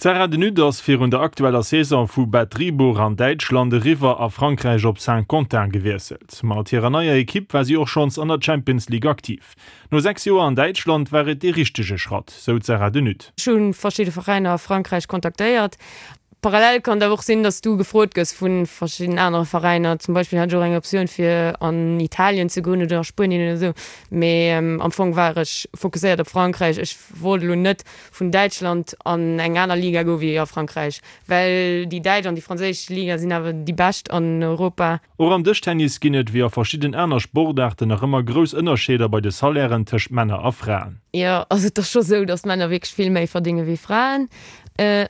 D'Sarah De Nutte ass virun der aktueller Saison vu Bad Driburg an Däitschland eriwwer a Frankräich op Saint-Quentin gewiesselt. Mat hirer neier Ekipp war si och schonns an der Champions League aktiv. No 6 Joer an Däitschland war et dee richtege Schratt, sou d'Sarah De Nutte. Ech hu verschidde Veräiner a Frankräich kontaktéiert. Parallel kann et awer och sinn, dass du gefrot gëss vu verschidden anere Veräiner. Zum Beispill hat ech och eng Optioun fir an Italien ze goen oder a Spuenien oder esou. Mee am Fong war ech fokusséiert op Frankräich. Ech wollt elo net vun Däitschland an eng aner Liga goe wéi a Frankräich, well déi däitsch an déi franséisch Liga sinn awer déi bescht an Europa. Och am Dëschtennis ginn et, wéi a verschidden aner Sportaarten, nach ëmmer grouss Ënnerscheeder bei de Salairen tëscht Männer a Fraen. Jo, also et ass scho sou, datt Männer wierklech vill méi verdénge wéi Fraen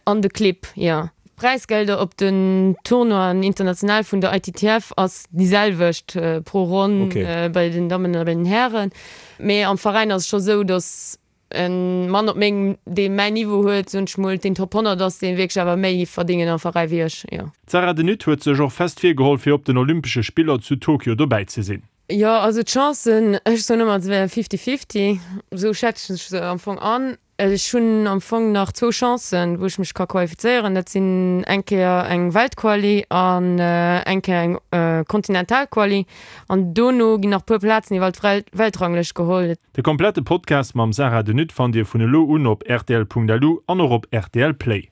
an de Clibb, jo. D'Präisgelder op den Tournoien international vun der ITTF ass déi selwecht pro Ronn bei den Dammen a bei den Hären. Mee am Veräin ass et scho sou, datt E Mann op mengem, dee mäin Niveau huet, soen ech mol, deen Top 100 ass, deen wierklech awer méi verdéngen am Veräi wéi ech, jo. D'Sarah De Nutte huet sech och fest virgeholl fir op den Olympesche Spiller zu Tokio dobäi ze sinn. Jo, also d'Chancen, ech soen ëmmer, se wären fifty-fifty, esou schätzen ech se am Fong an. Ech hunn am Fong nach zwou Chancen, wou ech mech ka qualifizéieren, dat sinn eng Kéier eng Weltquali an eng Kéier eng Kontinentalquali. An dono ginn nach puer Plazen iwwer d'Weltranglëscht geholl. De komplette Podcast mam Sarah De Nutte fannt Dir vun elo un op rtl.lu an och op rtl Play.